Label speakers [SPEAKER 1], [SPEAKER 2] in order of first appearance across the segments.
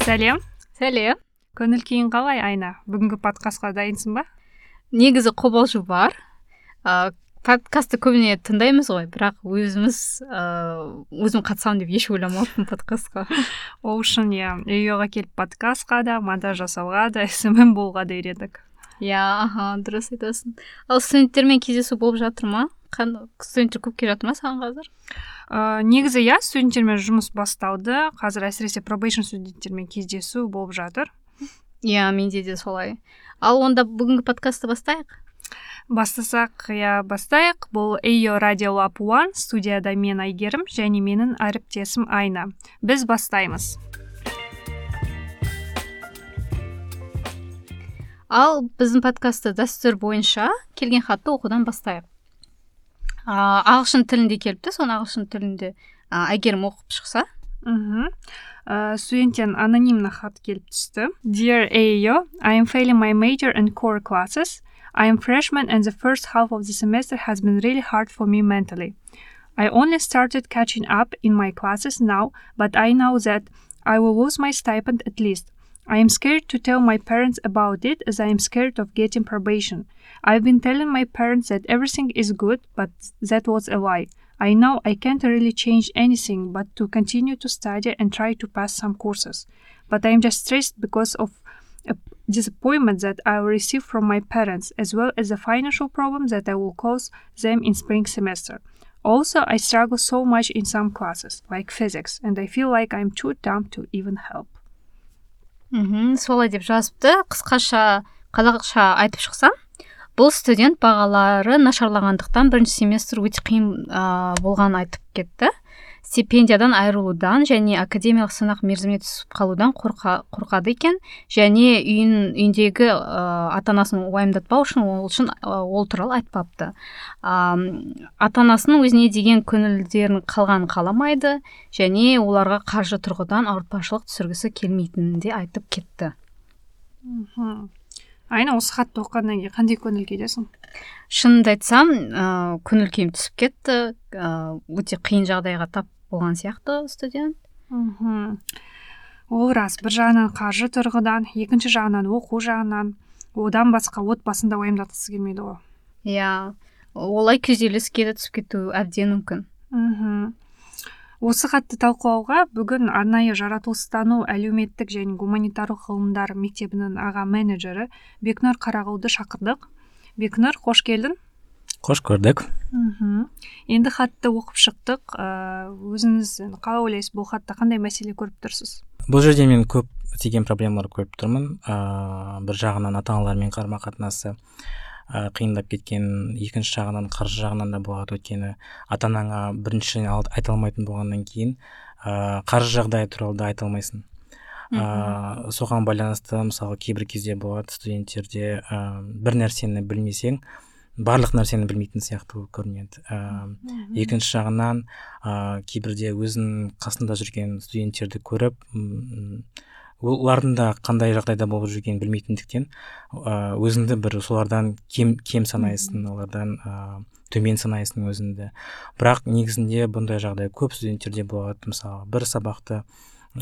[SPEAKER 1] Сәлем.
[SPEAKER 2] Сәлем.
[SPEAKER 1] Көңіл күйің қалай, Айна? Бүгінгі подкастқа дайынсың ба?
[SPEAKER 2] Негізі қобалжу бар. Подкастты көбіне тыңдаймыз ғой, бірақ өзім қатысамын деп еш ойламаппын подкастқа.
[SPEAKER 1] Ол үшін үйге келіп подкастқа да, монтаж жасауға да, СММ болуға да үйрендік.
[SPEAKER 2] Дұрыс айтасың. Ал студенттермен кездесу болып жатыр ма? Студенттер көп келіп жатыр ма саған қазір?
[SPEAKER 1] Негізі студенттермен жұмыс басталды. Қазір әсіресе пробейшн студенттермен кездесу болып жатыр.
[SPEAKER 2] Менде де солай. Ал онда бүгінгі подкастты бастайық?
[SPEAKER 1] Бастасақ, бастайық. Бұл AO Radio Lab 1, студияда мен Айгерім және менің әріптесім Айна. Біз бастаймыз.
[SPEAKER 2] Ал біздің подкастты дәстүр бойынша келген хатты оқудан бастайық. Ағылшын тілінде келіпті, соны ағылшын тілінде Айгерім оқып шықса.
[SPEAKER 1] Студенттен анонимный хат келіп түсті. Dear AO, I am failing my major and core classes. I am freshman and the first half of the semester has been really hard for me mentally. I only started catching up in my classes now, but I know that I will lose my stipend at least. I am scared to tell my parents about it as I am scared of getting probation. I've been telling my parents that everything is good, but that was a lie. I know I can't really change anything but to continue to study and try to pass some courses. But I am just stressed because of a disappointment that I will receive from my parents, as well as the financial problems that I will cause them in spring semester. Also, I struggle so much in some classes, like physics, and I feel like I'm too dumb to even help.
[SPEAKER 2] Солай деп жазыпты. Қысқаша қазақша айтып шықсам, бұл студент бағалары нашарлағандықтан бірінші семестр өте қиын болғанын айтып кетті. Стипендиядан айырылудан және академиялық сынақ мерзіміне түсіп қалудан қорқады екен, және үйіндегі ата-анасын уайымдатпау үшін ол туралы айтпапты. Ата-анасының өзіне деген көңілдерін қалғанын қаламайды, және оларға қаржы тұрғыдан ауыртпашылық түсіргісі келмейтінін де айтып кетті.
[SPEAKER 1] Айна, осы хатты оқығаннан кейін қандай көңіл күйдесің?
[SPEAKER 2] Шынымды айтсам, көңіл күйім түсіп кетті. Өте қиын жағдайға тап болған сияқты студент.
[SPEAKER 1] Ол рас, бір жағынан қаржы тұрғыдан, екінші жағынан оқу жағынан, одан басқа отбасында уайымдатқысы келмейді ғой.
[SPEAKER 2] Олай күйзеліске де түсіп кету әбден мүмкін.
[SPEAKER 1] Осы хатты талқылауға бүгін арнайы жаратылыстану, әлеуметтік және гуманитарлық ғылымдар мектебінің аға менеджері Бекнұр Қарағұлды шақырдық. Бекнұр, қош келдің.
[SPEAKER 3] Қош көрдік.
[SPEAKER 1] Енді хатты оқып шықтық. Өзіңіз қалай ойлайсыз, бұл хатта қандай мәселе көріп тұрсыз?
[SPEAKER 3] Бұл жерде мен көп деген проблемалар көріп тұрмын. Бір жағынан ата-аналармен қарым-қатынасы қиындап кеткен, екінші жағынан қаржы жағынан да болады. Өйткені ата-анаңа бірінші айта алмайтын болғаннан кейін қаржы жағдайы туралы да айта алмайсың. Соған байланысты мысалы кейбір кезде болады студенттерде бір нәрсені білмесең, барлық нәрсені білмейтін сияқты көрінеді. Екінші жағынан кейбірде өзінің қасында жүрген студенттерді көріп, олардың да қандай жағдайда болып жүргенін білмейтіндіктен өзіңді бір солардан кем санайсың, олардан төмен санайсың өзіңді. Бірақ негізінде бұндай жағдай көп студенттерде болады. Мысалы, бір сабақты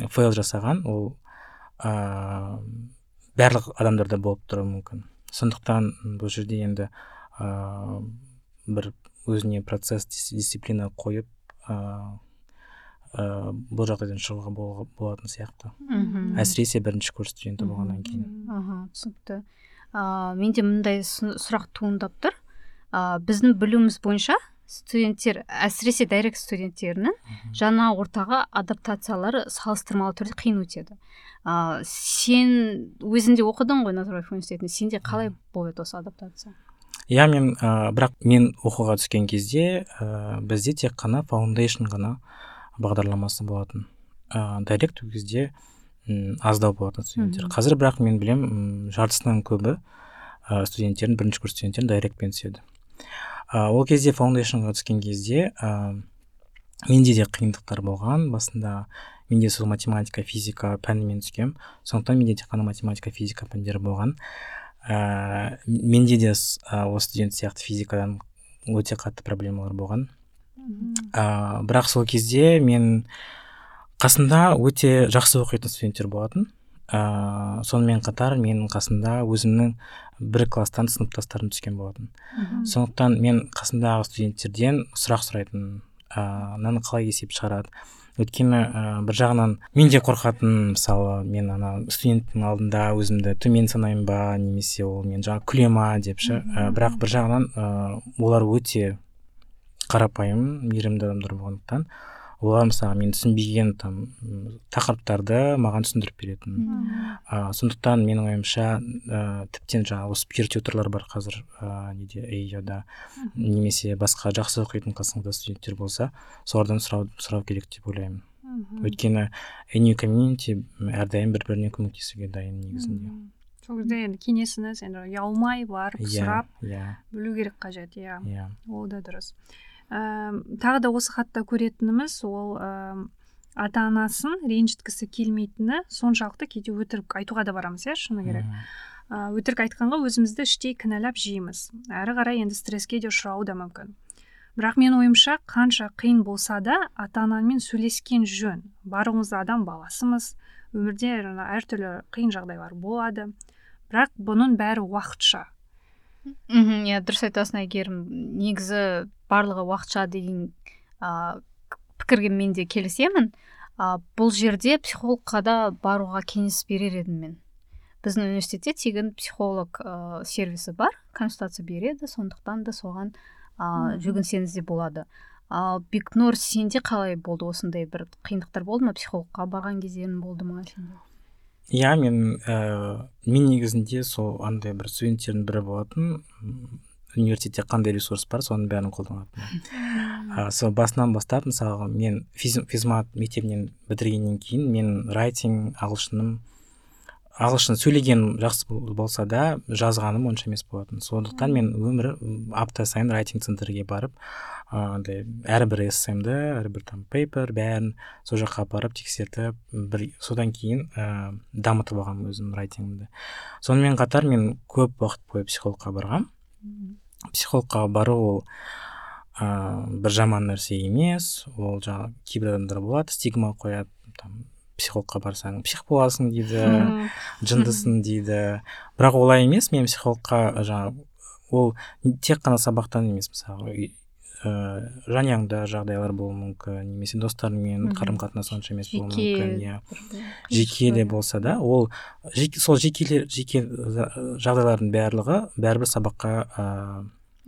[SPEAKER 3] фейл жасаған, ол барлық адамдарда болып тұруы мүмкін. Сондықтан бұл жерде енді бір өзіне процесс, дисциплина қойып бұл жағдайдан шығуға болатын сияқты. Әсіресе бірінші курс студенті болғаннан кейін.
[SPEAKER 2] Түсінікті. Менде мындай сұрақ туындап тұр. Біздің білуіміз бойынша студенттер, әсіресе дайрект студенттерінің жаңа ортаға адаптациялары салыстырмалы түрде қиын өтеді. Сен өзінде оқыдың ғой Назарбаев университетінде. Сенде қалай болды осы адаптация?
[SPEAKER 3] Бірақ мен оқуға түскен кезде бізде тек қана foundation ғана бағдарламасы болатын. Дайрект кезде аздау болатын студенттер. Қазір бірақ мен білем, жартысынан көбі студенттердің, бірінші курс студенттердің дайректпен түседі. Ол кезде фаундейшнға түскен кезде менде де қиындықтар болған. Басында менде сол математика, физика пәнімен түскем. Сондықтан менде тек қана математика, физика пәндері болған. Менде де осы студент сияқты физикадан өте қатты проблемалар болған. Бірақ сол кезде мен қасында өте жақсы оқитын студенттер болатын. сонымен қатар менің қасымда өзімнің бір класстан сыныптастарым түскен болатын. Сондықтан мен қасымдағы студенттерден сұрақ сұрайтын, мынаны қалай есеп шығарады. Өйткені бір жағынан мен де қорқатын, мысалы мен студенттің алдында өзімді төмен санаймын ба, немесе ол мен жаңа күле ма деп ше. Бірақ бір жағынан олар өте қарапайым, мейірімді адамдар болғандықтан олар мысалы мен түсінбеген тақырыптарды маған түсіндіріп беретін. Сондықтан менің ойымша тіптен жаңағы осы пир-тьюторлар бар қазір неде AEO-да, немесе басқа жақсы оқитын қасыңызда студенттер болса, солардан сұрау керек деп ойлаймын. Өйткені ANU комьюнити әрдайым бір-біріне көмектесуге дайын негізінде.
[SPEAKER 1] Сол кезде енді кеңесіңіз енді ұялмай барып сұрап білу керек қажет. Ол да дұрыс. Тағы да осы хатта көретініміз ол ата-анасын ренжіткісі келмейтіні соншалықты кейде өтірік айтуға да барамыз, шыны керек. Өтірік айтқанға өзімізді іштей кінәлап жейміз. Әрі қарай енді стресске де ұшырауы да мүмкін. Бірақ мен ойымша қанша қиын болса да ата-анамен сөйлескен жөн. Барлығымыз адам баласымыз, өмірде әртүрлі қиын жағдайлар болады. Бірақ бұның бәрі уақытша.
[SPEAKER 2] Дұрыс айтасың Әйгерім. Негізі барлығы уақытша деген пікірге мен де келісемін. Бұл жерде психологқа да баруға кеңес берер едім мен. Біздің университетте тегін психолог сервисі бар, консультация береді, сондықтан да соған жүгінсеңіз де болады. Бекнұр, сенде қалай болды, осындай бір қиындықтар болды ма, психологқа барған кездерің болды ма сенде?
[SPEAKER 3] Мен негізінде сол андай бір студенттердің бірі болатын, университетте қандай ресурс бар, соның бәрін қолданатын. Сол басынан бастап, мысалы, мен физмат мектебінен бітіргеннен кейін, мен райтинг, ағылшын сөйлеген жақсы болса да, жазғаным онша емес болатын. Сондықтан мен апта сайын райтинг центрге барып, әрбір эссемді, әрбір пейпер, бәрін сол жаққа барып тексертіп, содан кейін дамытып алғам өзім райтингімді. Сонымен қатар мен көп уақыт бойы психологқа барғам. Психологқа бару ол бір жаман нәрсе емес, ол жаңа кейбір адамдар болады, стигма қояды, психологқа барсаң псих боласың дейді, жындысың дейді. Бірақ олай емес, мен психологқа ол тек қана сабақтан емес, мысалы жанұяңда жағдайлар болуы мүмкін, немесе достарыңмен қарым-қатынас онша емес болуы мүмкін, жеке де болса да, ол сол жеке жағдайлардың барлығы бәрібір сабаққа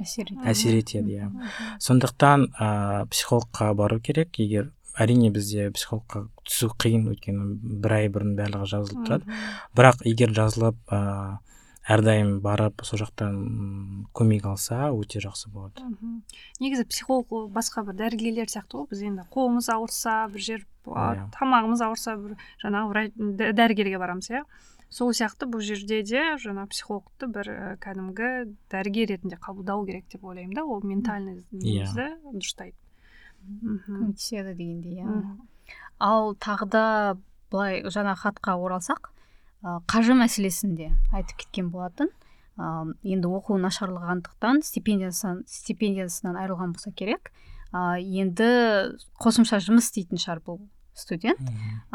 [SPEAKER 3] әсер етеді. Сондықтан психологқа бару керек. Егер әрине бізде психологқа түсу қиын, өйткені бір ай бұрын барлығы жазылып тұрады. Бірақ егер жазылып әрдайым барып сол жақтан көмек алса, өте жақсы болады.
[SPEAKER 1] Негізі психолог басқа бір дәрігерлер сияқты ғой. Біз енді қолымыз ауырса, бір жер тамағымыз ауырса, бір жаңағы дәрігерге барамыз, Сол сияқты бұл жерде де жаңа психологты бір кәдімгі дәрігер ретінде қабылдау керек деп ойлаймын да, ол ментальный немізді дұрыстайды.
[SPEAKER 2] Көмектеседі дегендей. Ал тағы да былай жаңа хатқа оралсақ, қаржы мәселесінде айтып кеткен болатын. Енді оқу нашарлағандықтан стипендиясынан айырылған болса керек. Енді қосымша жұмыс істейтін шығар бұл студент.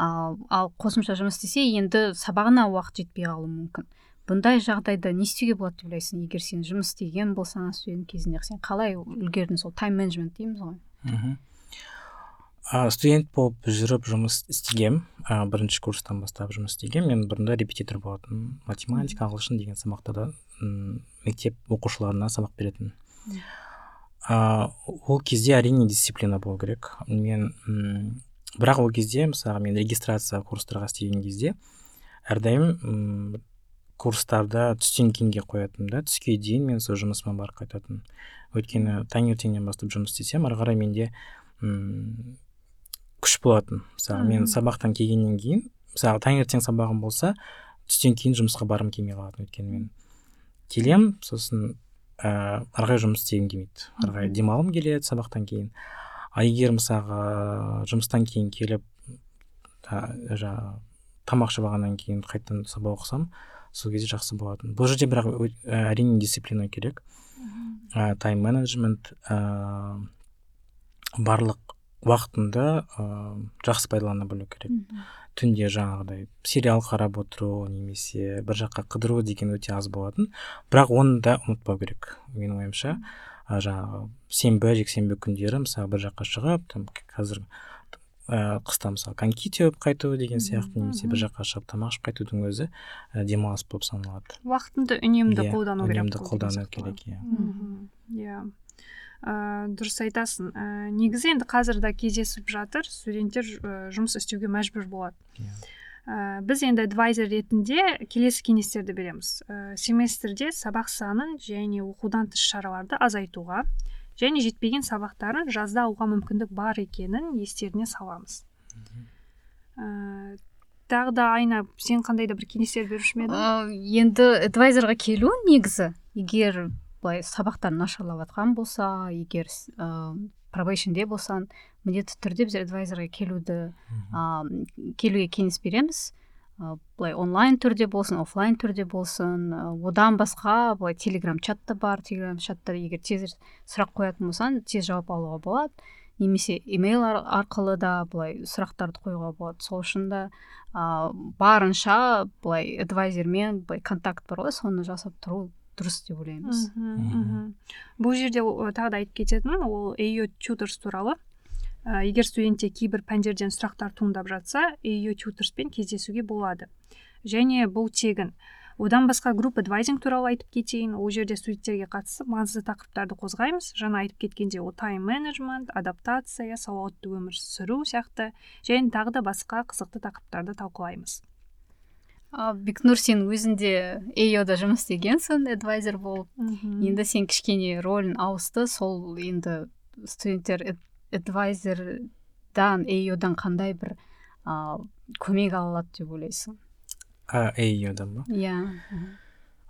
[SPEAKER 2] Ал қосымша жұмыс істесе, енді сабағына уақыт жетпей қалуы мүмкін. Бұндай жағдайда не істеуге болады деп ойлайсың? Егер сен жұмыс істеген болсаң студент кезінде, сен қалай үлгердің? Сол тайм-менеджмент дейміз ғой.
[SPEAKER 3] Студент болып жүріп жұмыс істегем, бірінші курстан бастап жұмыс істегем. Мен бұрында репетитор болатын, математика, ағылшын деген сабақтарда мектеп оқушыларына сабақ беретін. Ол кезде әрине дисциплина болу керек. Бірақ ол кезде, мысалы, мен регистрация курстарға істеген кезде әрдайым курстарда түстен кейінге қоятын да, түске дейін мен сол жұмысыма барып қайтатын. Өйткені таңертеңнен бастап жұмыс істесем, ары қарай менде күш болатын. Мысалы, мен сабақтан келгеннен кейін, мысалы, таңертең сабағым болса, түстен кейін жұмысқа барым келмей қалатын. Өйткені мен келем, сосын ары қарай жұмыс істегім келмейді. Ары қарай демалғым келеді сабақтан кейін. Егер мысалы жұмыстан кейін келіп тамақ жабағаннан кейін қайтадан сабақ оқысам, сол кезде жақсы болатын. Бұл жерде бірақ әрине дисциплина керек. Тайм-менеджмент, барлық уақытында жақсы пайдалана білу керек. түнде жаңағыдай сериал қарап отыру немесе бір жаққа қыдыру деген өте аз болатын, бірақ оны да ұмытпау керек менің ойымша. Жаңағы сенбі жексенбі күндері мысалы бір жаққа шығып, там қазір қыста мысалы коньки теуіп қайту деген сияқты, немесе бір жаққа шығып тамақ ішіп қайтудың өзі демалыс болып саналады.
[SPEAKER 1] Уақытыңды үнемді қолдану керек.
[SPEAKER 3] Үнемді қолдану керек,
[SPEAKER 1] иә. Дұрыс айтасың. Негізі енді қазір да кездесіп жатыр, студенттер жұмыс істеуге мәжбүр болады. Біз енді адвайзер ретінде келесі кеңестерді береміз. Семестрде сабақ санын және оқудан тыс шараларды азайтуға, және жетпеген сабақтарын жазда алуға мүмкіндік бар екенін естеріне саламыз. Тағы да Айна, сен қандай да бір кеңестер беруші ме едің?
[SPEAKER 2] Енді адвайзерға келу негізі, егер былай сабақтан нашарлап жатқан болса, егер пробейшнде болсан, міндетті түрде біз адвайзерға келуге кеңес береміз. Былай онлайн түрде болсын, офлайн түрде болсын. Одан басқа былай телеграм чатта бар, телеграм чатта егер тез сұрақ қоятын болсан, тез жауап алуға болады. Немесе имейл арқылы да былай сұрақтарды қоюға болады. Сол үшін да барынша былай адвайзермен былай контакт бар ғой, соны жасап тұру дұрыс деп ойлаймыз.
[SPEAKER 1] Бұл жерде тағы да айтып кететін, ол AU Tutors туралы. Егер студентте кейбір пәндерден сұрақтар туындап жатса, AU Tutorspен кездесуге болады. Және бұл тегін. Одан басқа групп адвайзинг туралы айтып кетейін. Ол жерде студенттерге қатысып маңызды тақырыптарды қозғаймыз. Жаңа айтып кеткенде ол тайм менеджмент, адаптация, сауатты өмір сүру сияқты, және тағы да басқа қызықты тақырыптарды талқылаймыз.
[SPEAKER 2] Бекнұр, сен өзінде AU-да жұмыс істегенсің, адвайзер болып. Енді сен кішкене рөлін ауысты, сол енді студенттер адвайзердан, AU-дан қандай бір көмек алады деп ойлайсың?
[SPEAKER 3] AU-дан ба?
[SPEAKER 2] Иә.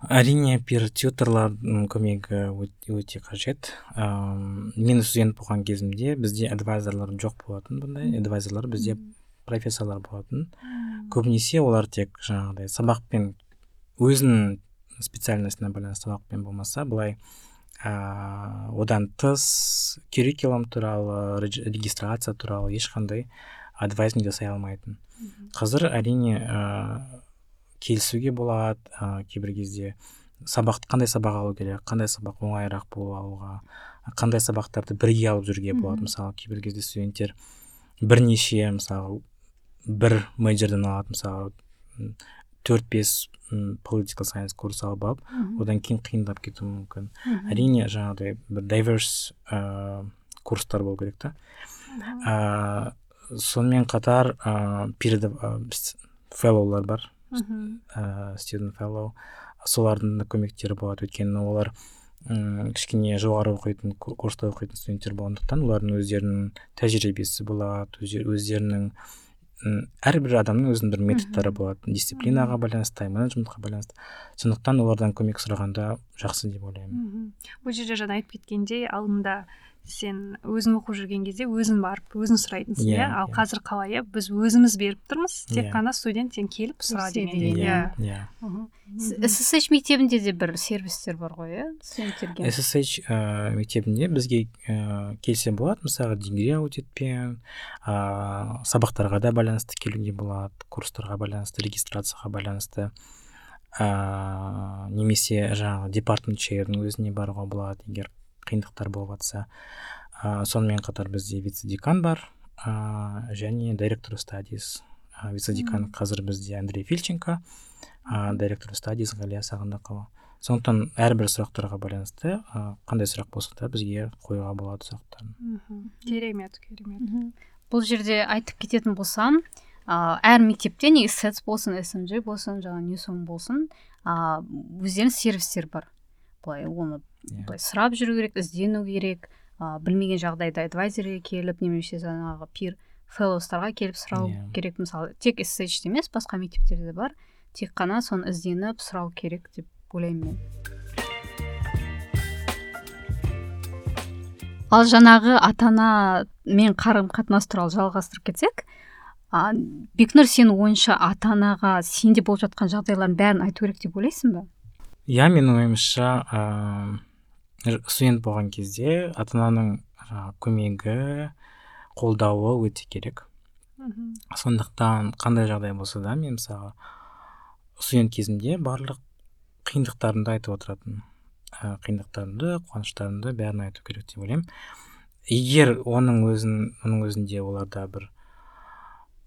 [SPEAKER 3] Әрине, пир-тьюторлардың көмегі өте қажет. Мен студент болған кезімде бізде адвайзерлар жоқ болатын, бұндай адвайзерлар бізде профессорлар болатын. Көбінесе олар тек жаңағыдай сабақпен, өзінің специальностына байланысты сабақпен болмаса, былай одан тыс curriculum туралы, регистрация туралы ешқандай адвайзинг жасай алмайтын. Қазір әрине келісуге болады, кейбір кезде қандай сабақ алу керек, қандай сабақ оңайырақ болып алуға, қандай сабақтарды бірге алып жүруге болады. Мысалы, кейбір кезде студенттер бірнеше, мысалы, бір мейджордан алады, мысалы 4-5 political science курс алып, одан кейін қиындап кетуі мүмкін. Әрине, жаңағыдай бір diverse курстар болу керек та. Сонымен қатар феллоулар бар, student fellow, солардың да көмектері болады, өйткені олар кішкене жоғары оқитын, курста оқитын студенттер болғандықтан, олардың өздерінің тәжірибесі болады, өздерінің әрбір адамның өзінің бір методтары болады, дисциплинаға байланысты, тайм-менеджментқа байланысты. Сондықтан олардан көмек сұрағанда жақсы деп ойлаймын.
[SPEAKER 1] Бұл жерде жаңа айтып кеткендей, алдында сен өзің оқып жүрген кезде өзің барып, өзің сұрайтынсың, иә? Ал қазір қалай, біз өзіміз беріп тұрмыз, тек қана студент сен келіп сұра деген.
[SPEAKER 2] SSH мектебінде де бір сервистер бар ғой, иә? Студенттерге.
[SPEAKER 3] SSH мектебінде бізге келсе болады, мысалы дегри аудитпен, сабақтарға да байланысты келуге болады, курстарға байланысты, регистрацияға байланысты, немесе жаңағы департамент чейрдің өзіне баруға болады, егер қиындықтар болып жатса. Сонымен қатар бізде вице-декан бар, және директор стадис. Вице-декан қазір бізде Андрей Фильченко, директор стадис Ғалия Сағындықова. Сондықтан әрбір сұрақтарға байланысты қандай сұрақ болса да бізге қоюға болады сұрақтарын.
[SPEAKER 1] Керемет.
[SPEAKER 2] Бұл жерде айтып кететін болсам, әр мектепте не SETS болсын, SMG болсын, жаңа Newsom болсын, өздерінің сервистер бар. Оны сұрап жүру керек, іздену керек, білмеген жағдайда адвайзерге келіп, немесе жаңағы пир феллоустарға келіп сұрау керек. Мысалы, тек SSH емес, басқа мектептерде бар, тек қана соны ізденіп сұрау керек деп ойлаймын мен. Ал жаңағы ата-ана мен қарым-қатынас туралы жалғастырып кетсек, Бекнұр, сен ойынша ата-анаға сенде болып жатқан жағдайлардың бәрін айту керек деп ойлайсың ба?
[SPEAKER 3] Иә, менің ойымша студент болған кезде ата-ананың көмегі, қолдауы өте керек. Сондықтан қандай жағдай болса да мен мысалы студент кезімде барлық қиындықтарымды айтып отыратын, қиындықтарымды, қуаныштарымды бәрін айту керек деп ойлаймын. Егер оның өзінде оларда бір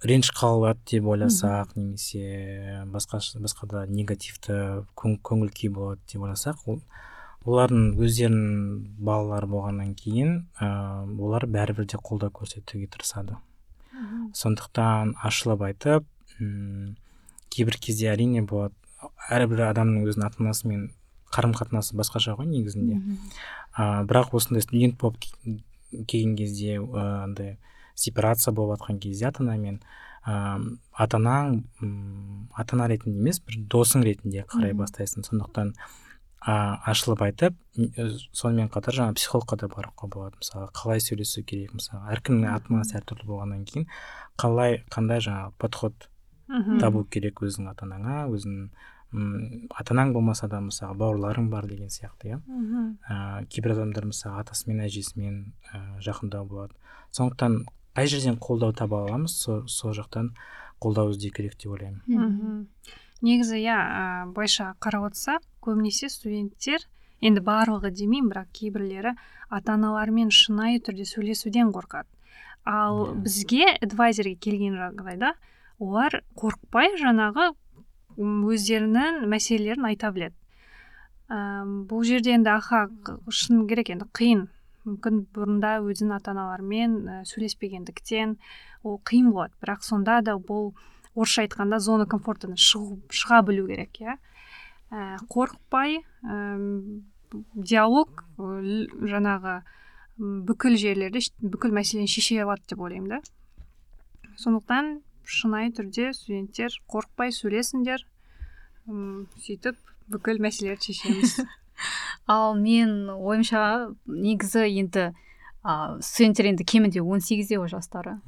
[SPEAKER 3] реніш қалады деп ойласақ, немесе басқа да негативті көңіл күй болады деп ойласақ, олардың өздерінің балалары болғаннан кейін олар бәрібір де қолдау көрсетуге тырысады. Сондықтан ашылып айтып, кейбір кезде әрине болады, әрбір адамның өзінің ата-анасымен қарым-қатынасы басқаша ғой негізінде. Бірақ осындай студент болып келген кезде, андай сепарация болып жатқан кезде ата-анамен, ата-ана ретінде емес, бір досың ретінде қарай бастайсың. Сондықтан ашылып айтып, сонымен қатар жаңа психологқа да баруға болады. Мысалы, қалай сөйлесу керек, мысалы, әркімнің ата-анасы әртүрлі болғаннан кейін қандай жаңа подход табу керек өзің ата-анаңа, өзің ата-анаң болмаса да мысалы бауырларың бар деген сияқты, иә. Кейбір адамдар мысалы атасымен, әжесімен жақындау болады. Сондықтан қай жерден қолдау таба аламыз, сол жақтан қолдау іздеу керек деп ойлаймын.
[SPEAKER 1] Негізі, былайша қарап отырсақ, көбінесе студенттер, енді барлығы демеймін, бірақ кейбірлері ата-аналарымен шынайы түрде сөйлесуден қорқады. Ал бізге адвайзерге келген жағдайда олар қорықпай жаңағы өздерінің мәселелерін айта біледі. Бұл жерде енді шын керек, енді қиын. Мүмкін бұрында өзінің ата-аналарымен сөйлеспегендіктен ол қиын болады. Бірақ сонда да бұл орысша айтқанда зона комфортынан шыға білу керек, иә. Қорықпай, диалог жаңағы бүкіл жерлерде бүкіл мәселені шеше алады деп ойлаймын, да. Сондықтан шынайы түрде студенттер қорықпай сөйлесіңдер, сөйтіп бүкіл мәселелерді шешеміз.
[SPEAKER 2] Ал мен ойымша негізі енді студенттер енді кемінде 18-де жастары.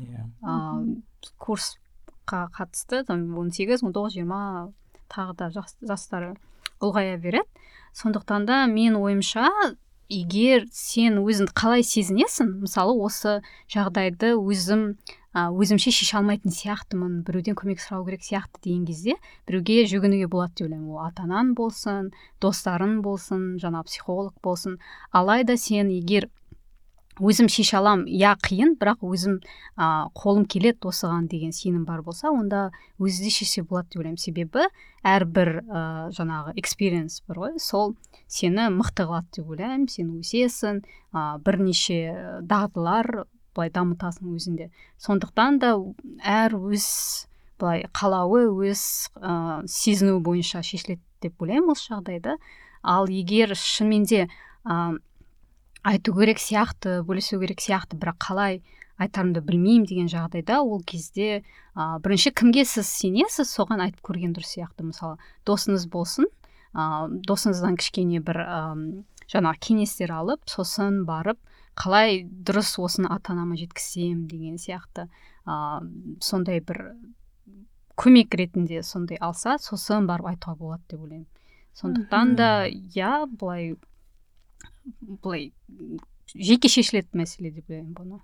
[SPEAKER 2] Курсқа қатысты 18, 19, 20 тағы да жастары ұлғая береді. Сондықтан да мен ойымша, егер сен өзіңді қалай сезінесің, мысалы осы жағдайды өзімше шеше алмайтын сияқтымын, біреуден көмек сұрау керек сияқты деген кезде біреуге жүгінуге болады деп ойлаймын. Ол ата-анаң болсын, достарың болсын, жаңа психолог болсын. Алайда сен егер өзім шеше алам, қиын, бірақ өзім қолым келеді осыған деген сенім бар болса, онда өзі де шеше болады деп ойлаймын. Себебі әрбір жаңағы experience бар ғой, сол сені мықты қылады деп ойлаймын. Сен өсесің, бірнеше дағдылар былай дамытасың өзінде. Сондықтан да әр өз былай қалауы, өз сезіну бойынша шешіледі деп ойлаймын осы жағдайда. Ал егер шынымен де айту керек сияқты, бөлісу керек сияқты, бірақ қалай айтарымды білмеймін деген жағдайда, ол кезде бірінші кімге сіз сенесіз, соған айтып көрген дұрыс сияқты. Мысалы, досыңыз болсын, досыңыздан кішкене бір жаңа кеңестер алып, сосын барып, қалай дұрыс осыны ата-анама жеткізсем деген сияқты, сондай бір көмек ретінде сондай алса, сосын барып айтуға болады деп ойлаймын. Сондықтан да, былай жеке шешілетін мәселе деп ойлаймын бұны.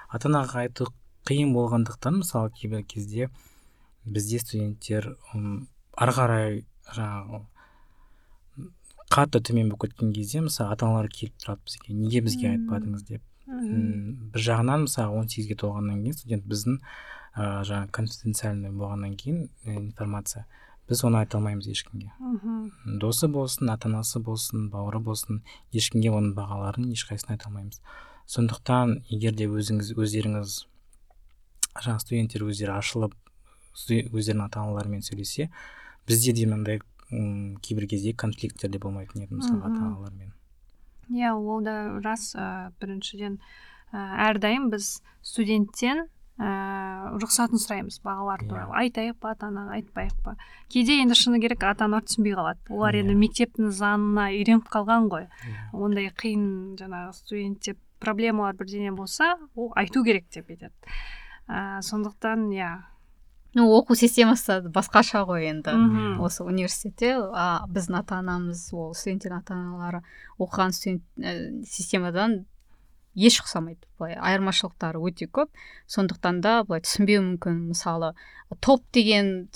[SPEAKER 3] Ата-анаға айту қиын болғандықтан, мысалы кейбір кезде бізде студенттер ары қарай жаңағы қатты төмен болып кеткен кезде, мысалы ата-аналар келіп тұрады бізге, неге бізге айтпадыңыз деп. Бір жағынан, мысалы 18-ге толғаннан кейін студент біздің жаңағы конфиденциальный болғаннан кейін информация, біз оны айта алмаймыз ешкімге. Досы болсын, ата-анасы болсын, бауыры болсын, ешкімге оның бағаларын ешқайсысын айта алмаймыз. Сондықтан, егер де өздеріңіз, жаңа студенттер өздері ашылып, өздерінің ата-аналарымен сөйлесе, бізде де мынандай кейбір кезде конфликттер де болмайтын еді, мысалы ата-аналармен.
[SPEAKER 1] Ол да рас. Біріншіден, әрдайым біз студенттен рұқсатын сұраймыз бағалар туралы. Айтайық па, ата-анаға айтпайық па. Кейде енді шыны керек ата-аналар түсінбей қалады. Олар енді мектептің заңына үйреніп қалған ғой. Ондай қиын жаңағы студентте проблемалар бірдеңе болса, ол айту керек деп айтады. Сондықтан,
[SPEAKER 2] оқу системасы басқаша ғой енді. Осы университетте біздің ата-анамыз, ол студенттердің ата-аналары оқыған студент системадан еш ұқсамайды, былай айырмашылықтары өте көп, сондықтан да былай түсінбеу мүмкін. Мысалы топ деген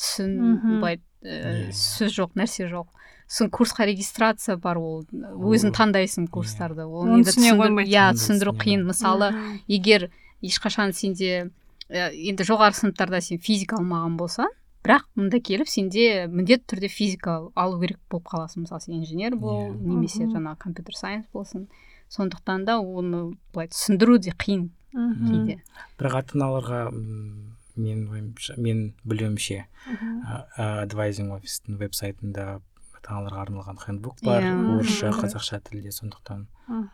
[SPEAKER 2] былай сөз жоқ, нәрсе жоқ. Сосын курсқа регистрация бар, ол өзің таңдайсың курстарды, ол енді түсіндіру қиын. Мысалы егер ешқашан сенде енді жоғары сыныптарда сен физика алмаған болсаң, бірақ мұнда келіп сенде міндетті түрде физика алу керек болып қаласың. Мысалы сен инженер бол, немесе жаңағы компьютер сайенс болсын. Сондықтан да оны былай түсіндіру де қиын кейде.
[SPEAKER 3] Бірақ ата-аналарға мен білуімше адвайзинг офистің веб-сайтында ата-аналарға арналған хендбук бар, орысша, қазақша тілде, сондықтан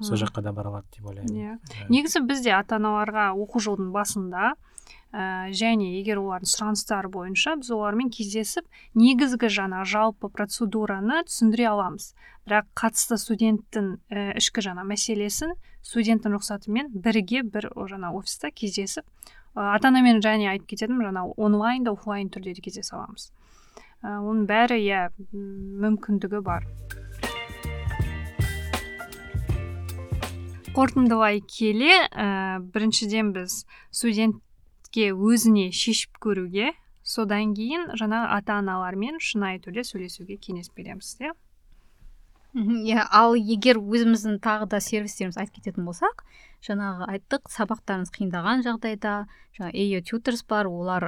[SPEAKER 3] сол жаққа да бара алады деп ойлаймын.
[SPEAKER 1] Негізі бізде ата-аналарға оқу жылдың басында және егер олардың сұраныстары бойынша біз олармен кездесіп негізгі жаңа жалпы процедураны түсіндіре аламыз. Бірақ қатысты студенттің ішкі жаңа мәселесін студенттің рұқсатымен бірге бір жаңа офиста кездесіп ата-анамен және айтып кетедім, жаңа онлайн да офлайн түрде де кездесе аламыз. Оның бәрі мүмкіндігі бар. Қорытындылай келе, біріншіден біз студентке өзіне шешіп көруге, содан кейін жаңа ата-аналармен шынайы түрде сөйлесуге кеңес береміз,
[SPEAKER 2] Ал егер өзіміздің тағы да сервистеріміз айтып кететін болсақ, жаңағы айттық, сабақтарыңыз қиындаған жағдайда, жаңа AO Tutors бар, олар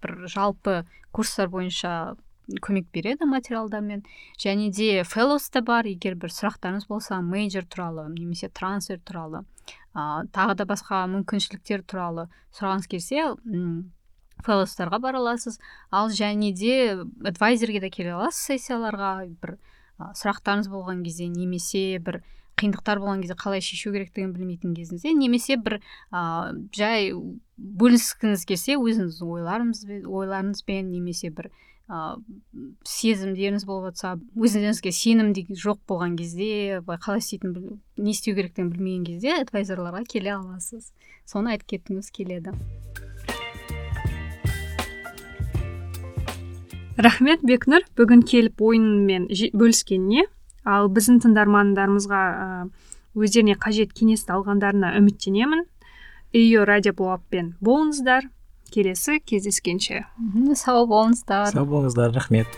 [SPEAKER 2] бір жалпы курстар бойынша көмек береді материалдармен, және де Fellows та бар, егер бір сұрақтарыңыз болса, мейджор туралы, немесе трансфер туралы, тағы да басқа мүмкіншіліктер туралы сұрағыңыз келсе, Fellows'тарға бара аласыз. Ал және де адвайзерге де келе аласыз сессияларға, бір сұрақтарыңыз болған кезде, немесе бір қиындықтар болған кезде қалай шешу керектігін білмейтін кезіңізде, немесе бір жай бөліскіңіз келсе өзіңіз ойларыңызбен, немесе бір сезімдеріңіз болып жатса, өзіңізге сенім жоқ болған кезде, қалай істейтін, не істеу керектігін білмеген кезде адвайзерларға келе аласыз. Соны айтып кеткіңіз келеді.
[SPEAKER 1] Рахмет, Бекнұр, бүгін келіп ойынмен бөліскеніне, ал біздің тыңдармандарымызға өздеріне қажет кеңесті алғандарына үміттенемін. AO радиоблогпен болыңыздар, келесі кездескенше.
[SPEAKER 2] Сау болыңыздар.
[SPEAKER 3] Рахмет.